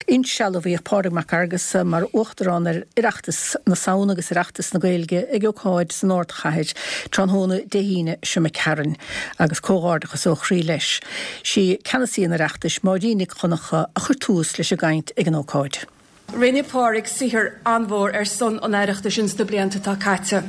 Insealbhaíodh Pádraig Mac Fhearghusa mar Uachtarán ar Oireachtas na Samhna agus Oireachtas na Gaeilge ag ócáid san ardchathair tráthnóna Dé hAoine seo imigh tharainn agus comhghairdeachas ó chroí leis. Sí Ceannasaí an Oireachtais, Máirín Nic Dhonncha, a chuir tús leis an gcaint ag an ócáid. Rinne Pádraig saothar an-mhór ar son an Oireachtais ins na blianta atá caite.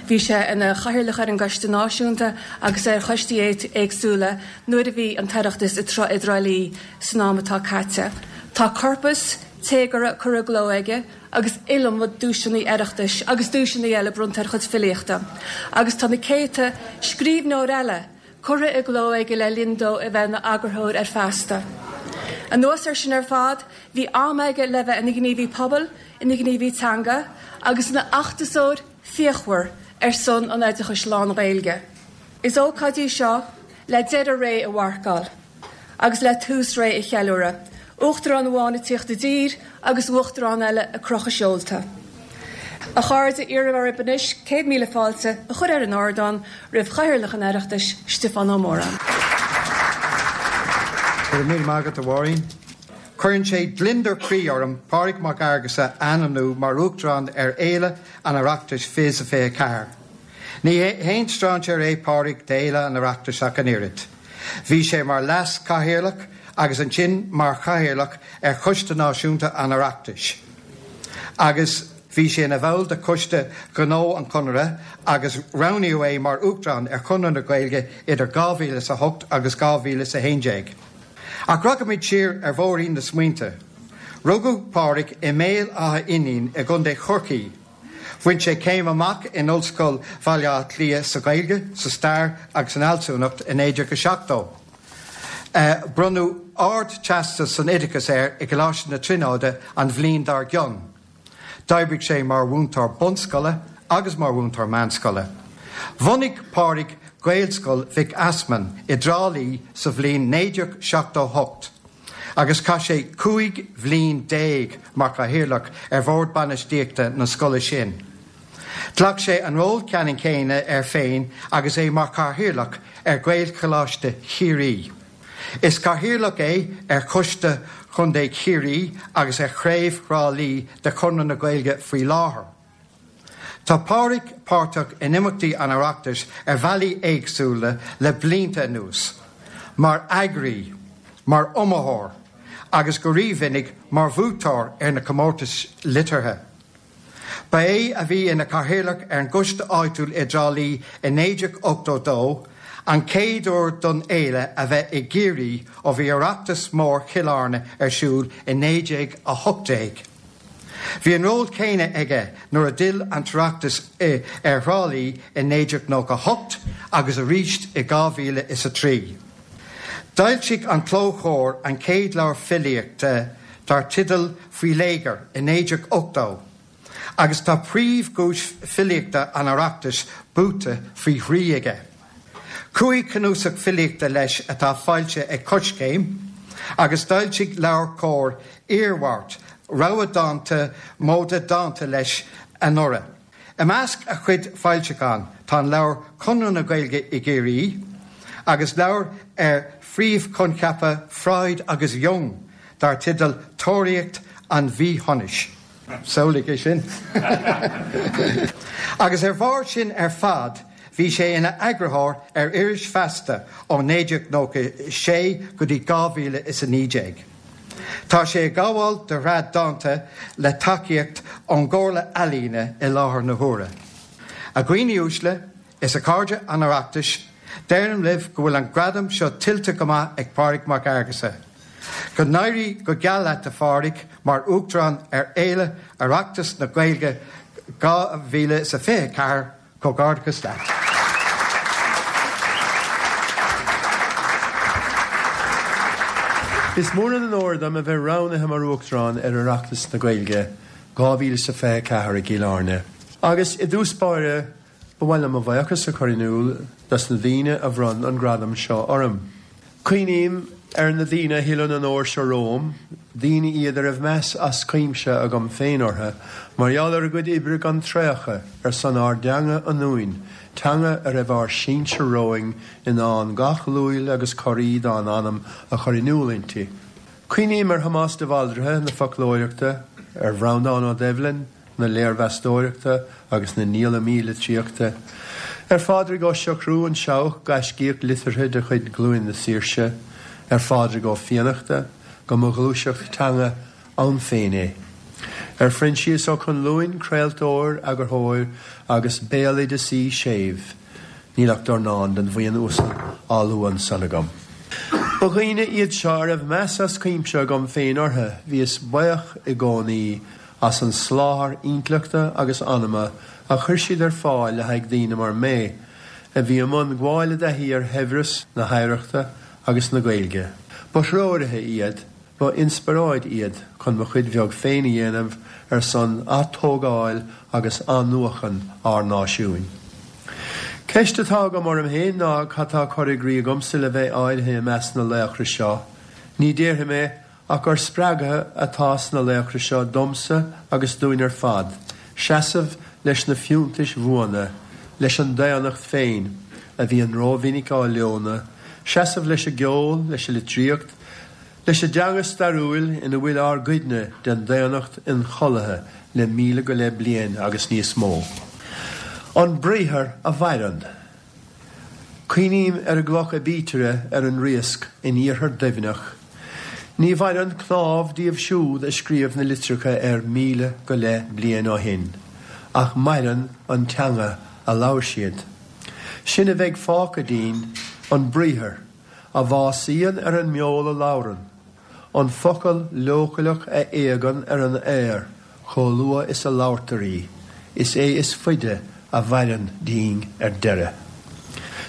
Bhí sé ina chathaoirleach ar an gCoiste Náisiúnta agus ar choistí éagsúla nuair a bhí an tOireachtas i dTrá Lí san am atá caite. Tá corpas téagartha curtha i gcló aige agus iliomad duaiseanna Oireachtais agus duaiseanna eile bronnta ar a chuid filíochta. Agus tá na céadta scríbhneoir eile curtha i gcló aige le linn dó a bheith ina eagarthóir ar Feasta. Anuas air sin ar fad, bhí am aige le bheith ina ghníomhaí pobail, ina ghníomhaí teanga agus ina fheachtasóir fíochmhar ar son an oideachais lán-Ghaeilge. Is ócáid í seo le deireadh ré a mharcáil agus le tús ré a cheiliúradh, Uachtarán amháin ag tíocht i dtír agus Uachtarán eile ag crochadh seolta. A chairde, iarraim oraibh anois 100,000 fáilte a chur ar an ardán roimh Chathaoirleach an Oireachtais, Stiofán Ó Móráin. Go raibh míle maith agat, a Mháirín. Cuireann sé gliondar croí orm Pádraig Mac Fhearghusa a ainmniú mar Uachtarán ar Fhéile an Oireachtais 2024. Ní haon strainséir é Pádraig d'Fhéile an Oireachtais ach an oiread. Bhí sé mar Leas-Chathaoirleach agus ansin mar Chathaoirleach ar Choiste Náisiúnta an Oireachtais agus bhí sé ina bhall de Choiste Gnó an Chonartha agus roghnaíodh é mar Uachtarán ar Chonradh na Gaeilge idir 2008 agus 2011. Ach rachaimid siar ar bhóithrín na smaointe. Rugadh Pádraig i mBéal Átha Fhínín i gContae Chorcaí. Bhain sé céim amach in Ollscoil Bhaile Átha Cliath sa Ghaeilge, sa Stair agus san Fhealsúnacht i 1970. Bronnadh Ard-Teastas san Oideachas air i gColáiste na Tríonóide an bhliain dár gcionn. D'oibrigh sé mar mhúinteoir bunscoile agus mar mhúinteoir meánscoile. Bhunaigh Pádraig Gaelscoil Mhic Easmainn i dTrá Lí sa bhliain 1978 agus chaith sé 15 bhliain mar chathaoirleach ar bhord bainistíochta na scoile sin. Ghlac sé an ról ceannann céanna air féin agus é mar chathaoirleach ar Ghaelcholáiste Chiarraí. Is cathaoirleach é ar Choiste Chontae Chiarraí agus ar Chraobh Thrá Lí de Chonradh na Gaeilge faoi láthair. Tá Pádraig páirteach in imeachtaí an Oireachtais ar bhealaí éagsúla le blianta anuas, mar eagraí, mar iomaitheoir agus go rímhinic mar bhuaiteoir ar na comórtais liteartha. Ba é a bhí ina chathaoirleach ar an gcoiste áitiúil i dTrá Lí i 1982, an chéad uair don fhéile a bheith i gCiarraí ó bhí Oireachtas Mór Chill Airne ar siúl i 1918. Bhí an ról céanna aige nuair a d'fhill an tOireachtas ar Thrá Lí i 1998 agus arís i 2003. D'fhoilsigh an Clóchomhar an chéad leabhar filíochta dar teideal Faoi Léigear i 1980 agus tá príomhdhuais filíochta an Oireachtais buaite faoi thrí aige. Chúig chnuasach filíochta leis atá foilsithe ag Coiscéim agus d'fhoilsigh LeabhairCOMHAR Iarmhairt, rogha dánta móide dánta leis anuraidh. I measc a chuid foilseachán tá an leabhar Conradh na Gaeilge i gCiarraí agus leabhar ar phríomhchoincheapa Freud agus Jung dar teideal Tóraíocht an Mhíshonais. Samhlaigh é sin! Agus ar bharr sin ar fad bhí sé ina eagarthóir ar iris Feasta ó 1996 go dtí 2019. Tá sé ag gabháil do shraith dánta le tacaíocht ón gComhairle Ealaíne i láthair na huaire. A dhaoine uaisle is a chairde an Oireachtais, deirim libh go bhfuil an gradam seo tuillte go maith ag Pádraig Mac Fhearghusa. Go n-éirí go geal leat a Phádraig mar Uachtarán ar Fhéile Oireachtas na Gaeilge 2024. Comhghairdeachas leat. Is mór an onóir dom a bheith roghnaithe mar Uachtarán ar Oireachtas na Gaeilge 2024 i gCill Airne. Agus i dtús báire, ba mhaith liom mo bhuíochas a chur in iúl dos na daoine a bhronn an gradam seo orm. Cuimhním ar na daoine a thuill an onóir seo romham, daoine iad a raibh meas as cuimse agam féin orthu mar gheall ar a gcuid oibre gan traochadh ar son ár dteanga ionúin, teanga a raibh ár sinsir romhainn in ann gach luail agus corraí dá n-anam a chur in iúl inti. Cuimhním ar Thomás de Bhaldraithe na foclóireachta, ar Bhreandán Ó Doibhlin na léirmheastóireachta agus na ndíolamaí litríochta, ar Phádraig Ó Siochrú, an Seabhac, gaiscíoch liteartha de chuid Ghlúin na Saoirse, ar Phádraig Ó Fiannachta, go mba ghluaiseacht teanga ann féin é, ar Phroinsias Ó Conluain, craoltóir, eagarthóir agus béaloideasaí séimh. Níl ach dornán den bhuíon uasal á lua ansan agam. Ba dhaoine iad seo a raibh meas as cuimse agam féin orthu, bhíos buíoch i gcónaí as an soláthar intleachta agus anama a chuir siad ar fáil le haghaidh daoine mar mé, a bhí i mbun gabháil i dtaithí ar shaibhreas na hoidhreachta agus na Gaeilge. Ba threoraithe iad Ba inspioráid iad chun mo chuid bheag féin a dhéanamh ar son atógáil agus athnuachan ár náisiúin. Ceist atá agam orm féin ná cad tá curtha i gcrích agamsa le bheith áirithe i measc na laochra seo? Ní déarfaidh mé ach gur spreagadh atá sna laochra seo domsa agus dúinn ar fad seasamh leis na fiúntais bhuana, leis an daonnacht féin, a bhíonn rómhinic á leonadh, seasamh leis an gceol, leis an litríocht, Leis an dteanga stairiúil ina bhfuil ár gcuidne den daonnacht ionchollaithe le 15,000 go leith bliain agus níos mó. An briathar a mhaireann. Cuimhním ar an gcloch aibítire ar an Riasc in iarthar Duibhneach. Ní mhaireann cnámh díobh siúd a scríobh na litreacha air 1,000 go leith bliain ó shin, ach maireann an teanga a labhair siad. Sin a bheidh fágtha dínn, an briathar. a bhásaíonn ar an mbeol a labhrann, an focal leochaileach a éagann ar an aer chomh luath is a labhartar í, is é is faide a mhaireann dínn ar deireadh.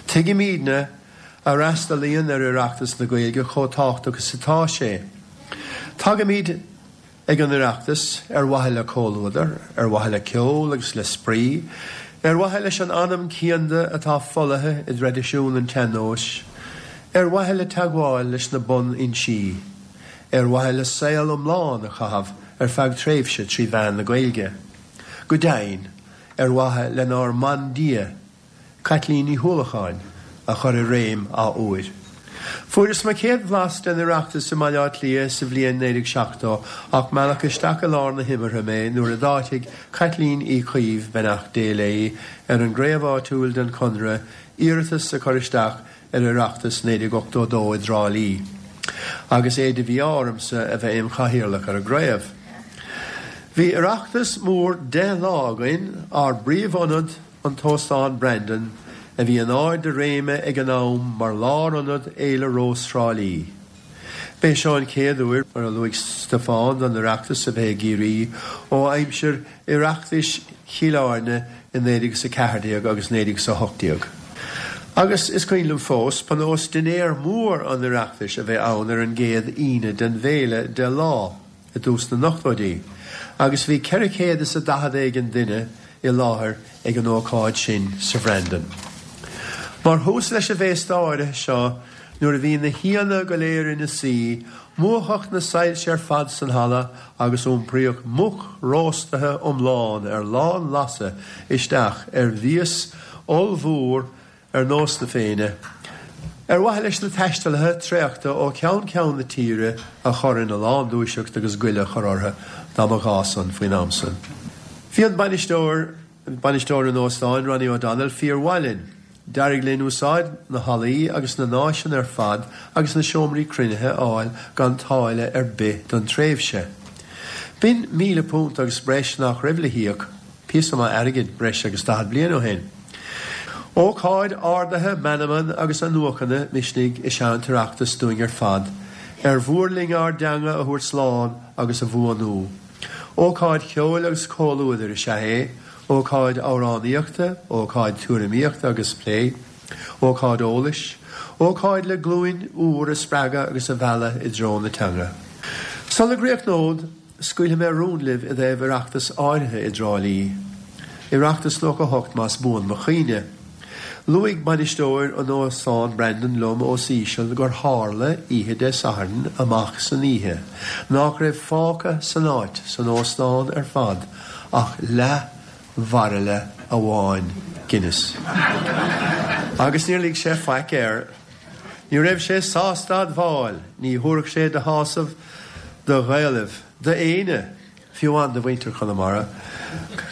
Tuigimidne a fhreastalaíonn ar Oireachtas na Gaeilge chomh tábhachtach is atá sé. Tagaimid. Ag an Oireachtas, ar mhaithe le comhluadar, ar mhaithe le ceol agus le spraoi, ar mhaithe leis an anam cianda atá folaithe i dtraidisiún an tsean-nóis, ar mhaithe le teagmháil leis na bunfhoinsí, ar mhaithe le saol iomlán a chaitheamh ar feadh tréimhse trí mheán na Gaeilge, go deimhin, ar mhaithe lenár mbandia, Caitlín Ní hUallacháin, a chur i réim athuair. Fuaireas mo chéad bhlas den Oireachtas i mBaile Átha Cliath sa bhliain 1970 ach mealladh isteach i lár na himeartha mé nuair a d'áitigh Caitlín Uí Chaoimh, beannacht Dé léi, ar an gcraobh áitiúil den Chonradh iarratas a chur isteach ar Oireachtas 1982 i dTrá Lí, agus é de mhí-ádh ormsa a bheith im chathaoirleach ar an gcraobh. Bhí Oireachtas mór 10 lá againn, ár bpríomhionad, An tÓstán Brandon, a bhí in ard a réime ag an am mar lárionad Fhéile Rós Thrá Lí. B'é seo an chéad uair, mar a luaigh Stiofán, don Oireachtas a bheith i gCiarraí ó aimsir Oireachtais Chill Airne i 1914 agus 1918. Agus is cuimhin liom fós, ba nós dinnéar mór an Oireachtais a bheith ann ar an gcéad Aoine den bhféile 10 lá. i dtús na n-ochtóidí, agus bhí 440 éigin duine i láthair ag an ócáid sin sa Bhrandon. Mar thús leis an bhféasta áirithe seo, nuair a bhí na haíonna go léir ina suí, múchadh na soilse ar fad san halla agus iompraíodh muc róstaithe iomlán ar lán-lasadh isteach ar mhias ollmhór ar nós na Féinne, ar mhaithe leis na taistealaithe traochta ó cheann ceann na tíre a chur ina lán-dúiseacht agus goile a chur orthu dá mba ghá san faoin am san. Bhí an bainisteoir, bainisteoir an óstáin, Ronnie O'Donnell, fíor-mhaith linn. D'éirigh linn úsáid na hallaí agus na n-áiseanna ar fad agus na seomraí cruinnithe a fháil gan táille ar bith don tréimhse. B'in £1,000 agus breis nach raibh le híoc, píosa maith airgid breis agus 40 bliain ó shin. Ócáid ardaithe meanman agus athnuachana misnigh is ea an tOireachtas dúinn ar fad, ar mhór linn ár dteanga a thabhairt slán agus a bhuanú. Ócáid cheoil agus comhluadair is ea é, ócáid amhránaíochta, ócáid tuairimíochta agus plé, ócáid eolais, ócáid le glúin úr a spreagadh agus a mhealladh i dtreo na teanga. Sula gcríochnód, Scaoilfidh mé rún libh i dtaobh Oireachtas áirithe i dTrá Lí. Oireachtas 98 más buan mo chuimhne. Luaigh bainisteoir an Óstáin Brandon liom os íseal gur tharla, oíche Dé Sathairn amach san oíche, nách raibh fágtha san áit, san óstán ar fad, ach leath bhairille amháin Guinness. Agus níor lig sé faic air. Ní raibh sé sásta admháil, ní thabharfadh sé de shásamh do Ghaelaibh, d'éinne, fiú amháin do mhuintir Chonamara,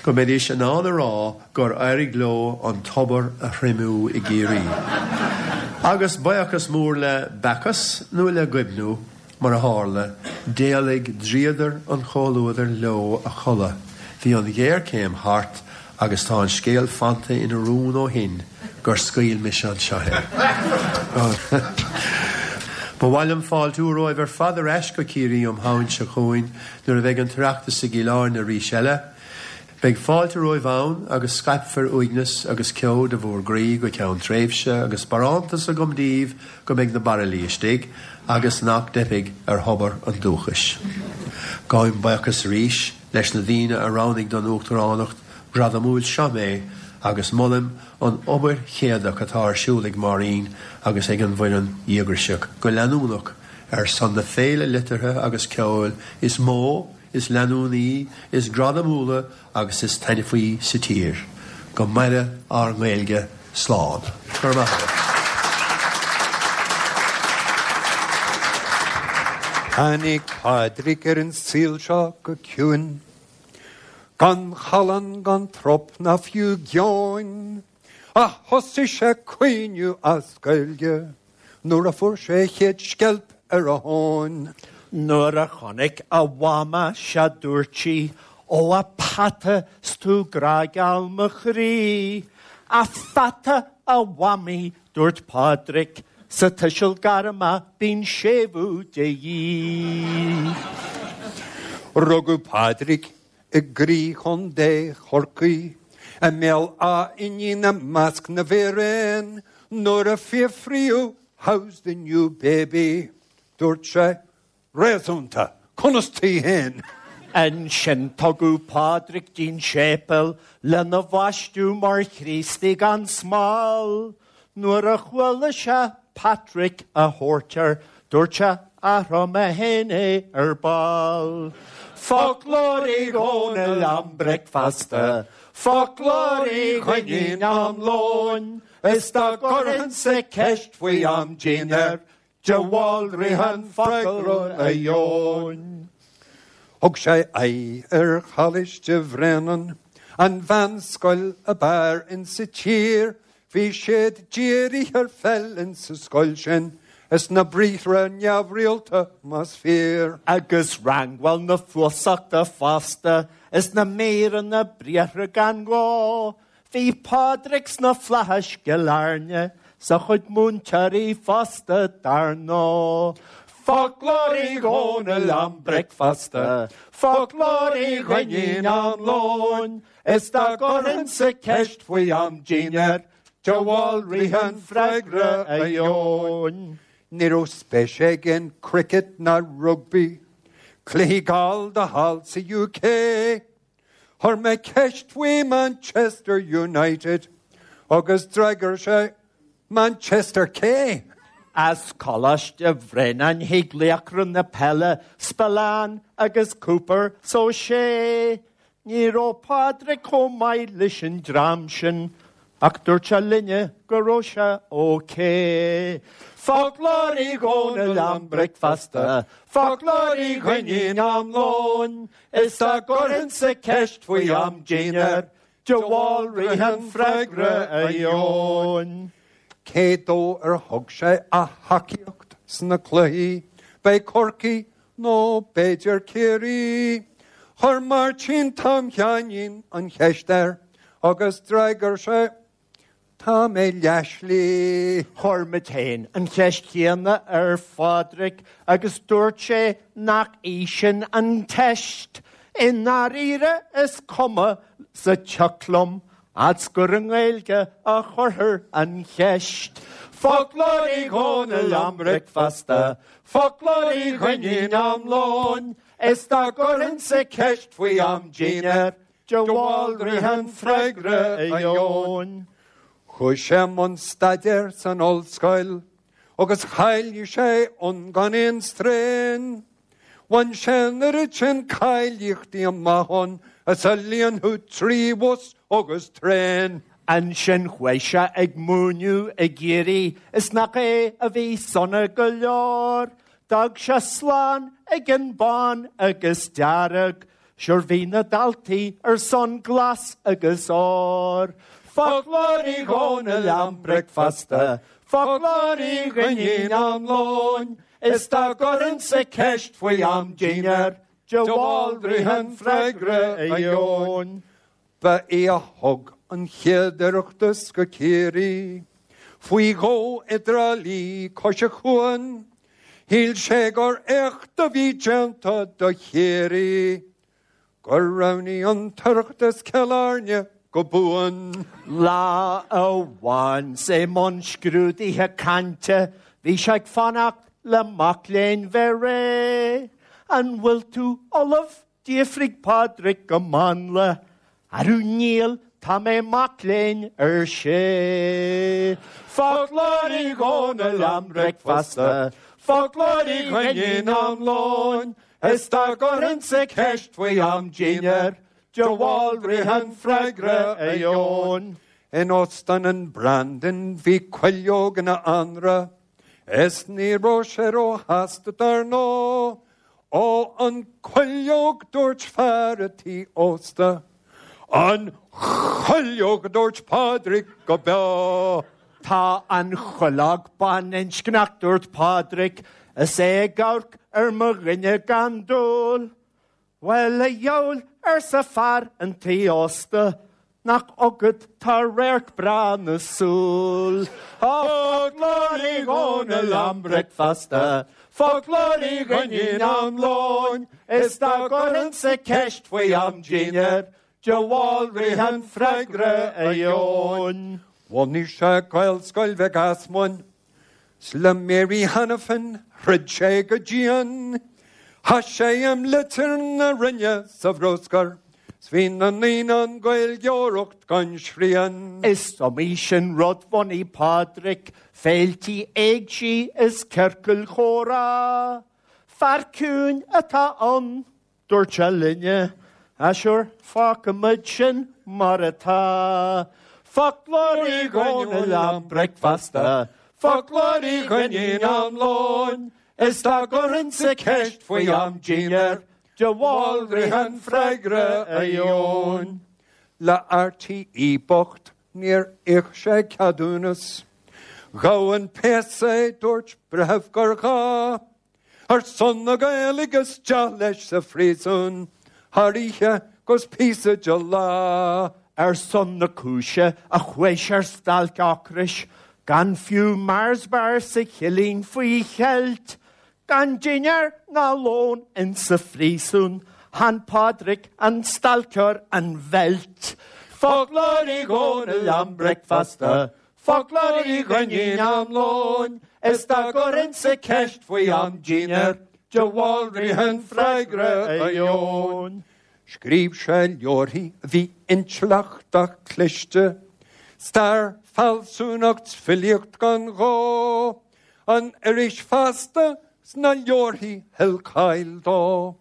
go mbeidís in ann a rá gur éirigh leo an tobar a thriomú i gCiarraí. Agus buíochas mór le Bacchus nó le Goibniú, Mar a tharla, d'éalaigh dríodar an chomhluadair leo a chodladh. Bhí an ghéarchéim thart agus tá an scéal fanta ina rún ó shin gur scaoil mise anseo é. Ba mhaith liom fáiltiú romhaibh ar fad ar ais go Ciarraí um Shamhain seo chugainn nuair a bheidh an tOireachtas i gCill Airne arís eile. Beidh fáilte romhaibh ann agus scaipfear uaigneas agus ceo de bhúr gcroí go ceann tréimhse agus barántas agam daoibh go mbeidh na bairillí istigh agus nach dteipfidh ar thobar an dúchais. Gabhaim buíochas arís leis na daoine a roghnaigh don Uachtaránacht ghradamúil seo mé agus molaim an obair chéadach atá ar siúl ag Máirín agus ag an bhfoireann dhíograiseach go leanúnach ar son na féile liteartha agus ceoil is mó is leanúnaí, is gradamúla agus is taitneamhaí sa tír. Go maire ár nGaeilge. Slán. Go raibh maith agat. Tháinig Pádraig ar an saol seo go ciúin, gan challán gan trup ná fiú geoin, ach thosaigh sé ag caoineadh as Gaeilge. Nuair a fuair sé a chéad sceilp ar a thóin. Nuair a chonaic a mhama sea dúirt sí, Ó a pheata 's tú grá-gheal mo chroí. A pheata a mhamaí, dúirt Pádraic, sa tuiseal gairme bíonn séimhiú de dhíth. Rugadh Pádraic i gcroí Chontae Chorcaí, i mBéal Átha Fhínín i measc na bhfíréan, nuair a fiafraíodh How's the new baby? dúirt sé, Réasúnta, conas taoi féin? Ansin tugadh Pádraig dtí'n séipéal lena bhaisteadh mar Chríostaí gan smál. Nuair a chuala sé Patrick á thabhairt air, dúirt sé, Athróidh mé féin é ar ball. Foclóir Uí Dhónaill am bricfeasta, Foclóir Uí Dhuinnín am lóin, Is dá gcuirfinnse ceist faoi am dinnéir, De Bhaldraithe an freagra a gheobhainn. Thug sé aghaidh ar Choláiste Bhréanainn, an mheánscoil ab fhearr insa tír. Bhí siad dírithe ar pheil insa scoil sin, is na briathra neamhrialta más fíor. Agus rangáil na fuasachta fosta, is na míreanna briathra gan ghá. Bhí Pádraig sna flaithis gCill Airne, 's a chuid múinteoirí fosta dar ndóigh. Foclóir Uí Dhónaill am bricfeasta, Foclóir Uí Dhuinnín am lóin, Is dá gcuirfinnse ceist faoi am dinnéir, De Bhaldraithe an freagra a gheobhainn. Ní raibh spéis aige in cricket ná rugbaí, cluichí gallda thall sa UK. Chuir mé ceist faoi Manchester United agus d'fhreagair sé Manchester cé? As Coláiste Bhréanainn thig laochra na peile Spillane agus Cooper 's O'Shea. Ní raibh Pádraig chomh maith leis an dream sin ach dúirt sé linne go raibh sé ok. Foclóir Uí Dhónaill am bricfeasta, Foclóir Uí Dhuinnín am lóin, Is dá gcuirfinnse ceist faoi am dinnéir, De Bhaldraithe an freagra a gheobhainn. Cé dó ar thug sé a thacaíocht sna cluichí? B'é Corcaigh nó b'fhéidir Ciarraí? Chuir Máirtín Tom Sheáinín an cheist air agus d'fhreagair sé, Tá mé leathshlí. Chuir muid féin an cheist chéanna ar Phádraig agus dúirt sé nach í sin an teist. I ndáiríre is cuma sa tsioc liom fhad's gur i nGaeilge a chuirthear an cheist. Foclóir Uí Dhónaill am bricfeasta, Foclóir Uí Dhuinnín am lóin, Is dá gcuirfinnse ceist faoi am dinnéir, De Bhaldraithe an freagra a gheobhainn. Chuaigh sé i mbun staidéir san ollscoil agus cháiligh sé ann gan aon straidhn. Bhain sé an oiread sin cáilíochtaí amach ann is a líonfadh 3 bhus agus traein. Ansin chuaigh sé ag múineadh i gCiarraí is nach é a bhí sona go leor. D'fhág sé slán ag an bán agus dearg, sure bhí na daltaí ar son glas agus ór. Foclóir Uí Dhónaill am bricfeasta, foclóir Uí Dhuinnín am lóin, is dá gcuirfinnse ceist faoi am dinnéir, de Bhaldraithe an freagra a gheobhainn. Ba é a thug an chéad Oireachtas go Ciarraí, faoi dhó i dTrá Lí cois an chuain. Shíl sé gur éacht a bhí déanta do Chiarraí, gur roghnaigh an tOireachtas Cill Airne go buan. Lá amháin 's é i mbun scrúdaithe cainte, bhí sé ag fanacht le mac léinn bheith réidh. An bhfuil tú ullamh? D'fhiafraigh Pádraig go mánla. Arú níl, tá mé mac léinn, ar sé. Foclóir Uí Dhónaill am bricfeasta, Foclóir Uí Dhuinnín am lóin, Is dá gcuirfinnse ceist faoi am dinnéir, De Bhaldraithe an freagra a gheobhainn. In Óstán an Brandon bhí cuileog ina anraith, Is ní raibh sé róshásta dar ndóigh. Ó an cuileog dúirt fear a' tí ósta. An chuileog a dúirt Pádraig go beo. Tá an chuileog baininscneach dúirt Pádraig is é ag amharc ar mo dhuine gan dúil. Bhuel, a dheabhail, arsa fear an tí ósta, nach agat tá radharc breá na súl. Foclóir Uí Dhónaill am bricfeasta, Foclóir Uí Dhuinnín am lóin, Is dá gcuirfinnse ceist faoi am dinnéir, De Bhaldraithe an freagra a gheobhainn. Bhunaigh sé Gaelscoil Mhic Easmuinn, 's le Mary Hanafin throid sé go dian. Chaith sé imlitir na Roinne sa bhruscar 's bhí na naíonáin Gaeilgeoireacht gan srian. Is iomaí sin rud bhunaigh Pádraig, féiltí éigsí is ciorcail chomhrá. Fear ciúin atá ann. Dúirt sé linne, Ah sure, fágfaimid sin mar atá. Foclóir Uí Dhónaill am bricfeasta, Foclóir Uí Dhuinnín am lóin, Is dá gcuirfinnse ceist faoi am dinnéir, De Bhaldraithe an freagra a gheobhainn. Le RTÉ bocht níor íoc sé ceadúnas. Ghabh an péas é, dúirt breitheamh gur ghá. Ar son na Gaeilge isteach leis sa phríosún thar oíche 'gus píosa de lá. Ar son na cúise a chuaigh sé ar stailc ocrais, gan fiú Mars bar sa chillín faoi cheilt, gan dinnéar ná lón insa phríosún, chan Pádraig an stailceoir an bheilt. Foclóir Uí Dhónaill am bricfeasta, Foclóir Uí Dhuinnín am lóin, Is dá gcuirfinnse ceist faoi am dinnéir, De Bhaldraithe an freagra a gheobhainn. Scríobh sé leabharthaí a bhí intleachtach cliste, Stair, fealsúnacht 's filíocht gan ghó, An iris Feasta 's na leabharthaí thuill cáil dó,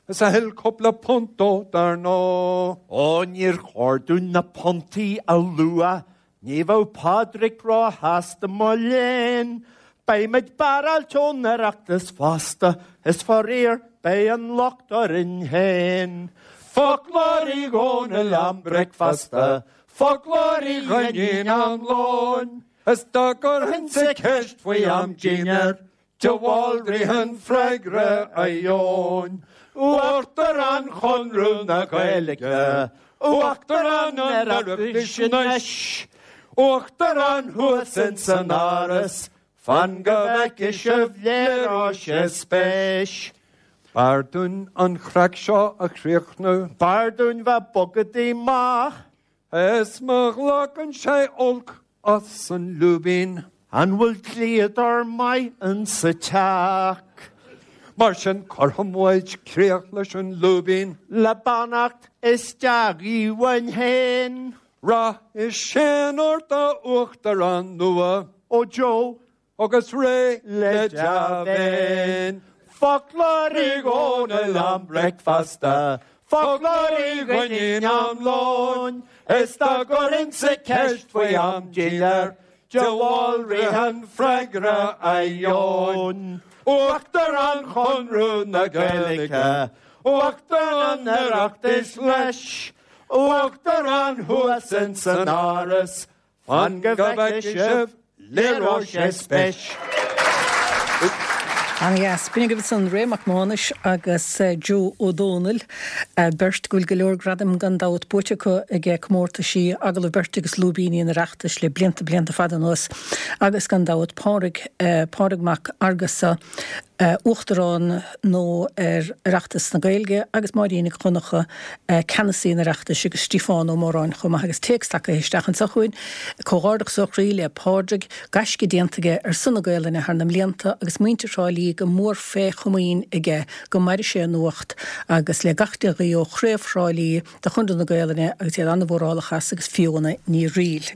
Is a thuill cúpla punt dó dar ndóigh. Ó níor chóir dúinn na puntaí a lua Ní bheadh Pádraig róshásta mo léan. Beimid barráilte ón Oireachtas fosta, is faraor beidh an locht orainn féin. Foclóir Uí Dhónaill am bricfeasta, Foclóir Uí Dhuinnín am lóin, Is dá gcuirfinnse ceist faoi am dinnéir, De Bhaldraithe an freagra a gheobhainn. Uachtarán Chonradh na Gaeilge, Uachtarán an Oireachtais anois, Uachtarán thuas ins an Áras, fan go bhfeicfidh sibh léireoidh sé spéis. B'fhearr dúinn an chraic seo a chríochnú. B'fhearr dúinn bheith bogadaí maith. Is má ghlacann sé olc as an lúibín. An bhfuil dlíodóir maith insa teach? Mar sin cuirfidh muid críoch leis an lúibín. Le beannacht is dea-ghuí uainn féin. Rath is séan ort a Uachtarán nua. Ó Joe, Agus réidh le dea-mhéin. Foclóir Uí Dhónaill am bricfeasta. Foclóir Uí Dhuinnín am lóin, is dá gcuirinnse ceist faoi am díl air, De Bhaldraithe an freagra a gheobhainn. Uachtarán Chonradh na Gaeilge, Uachtarán an Oireachtais leis, Uachtarán thuas ins an Áras, Fan go bhfeicfidh sibh, léireoidh sé spéis. Ana-dheas. B'in agaibh ansan Ray Mac Mánais agus Joe Ó Dónaill, beirt go bhfuil go leor gradaim gan dabht buaite acu ag comórtaisí agallamh beirte agus lúibíní an Oireachtais le blianta blianta fada anuas agus gan dabht Pádraig, Pádraig Mac Fhearghusa, Uachtarán nua ar Oireachtas na Gaeilge agus Máirín Nic Dhonncha, Ceannasaí an Oireachtais agus Stiofán Ó Móráin chomh maith agus téacs tagtha isteach anseo chugainn. Comhghairdeachas ó chroí le Pádraig, gaisce déanta aige ar son na Gaolainne thar na mblianta agus muintir Thrá Lí go mór fé chomaoin aige go maire sé a nuacht agus le gach dea-ghuí ó Chraobh Thrá Lí de Chonradh na Gaolainne agus iad an-mhórálach as agus Fiona Ní Fhrighil.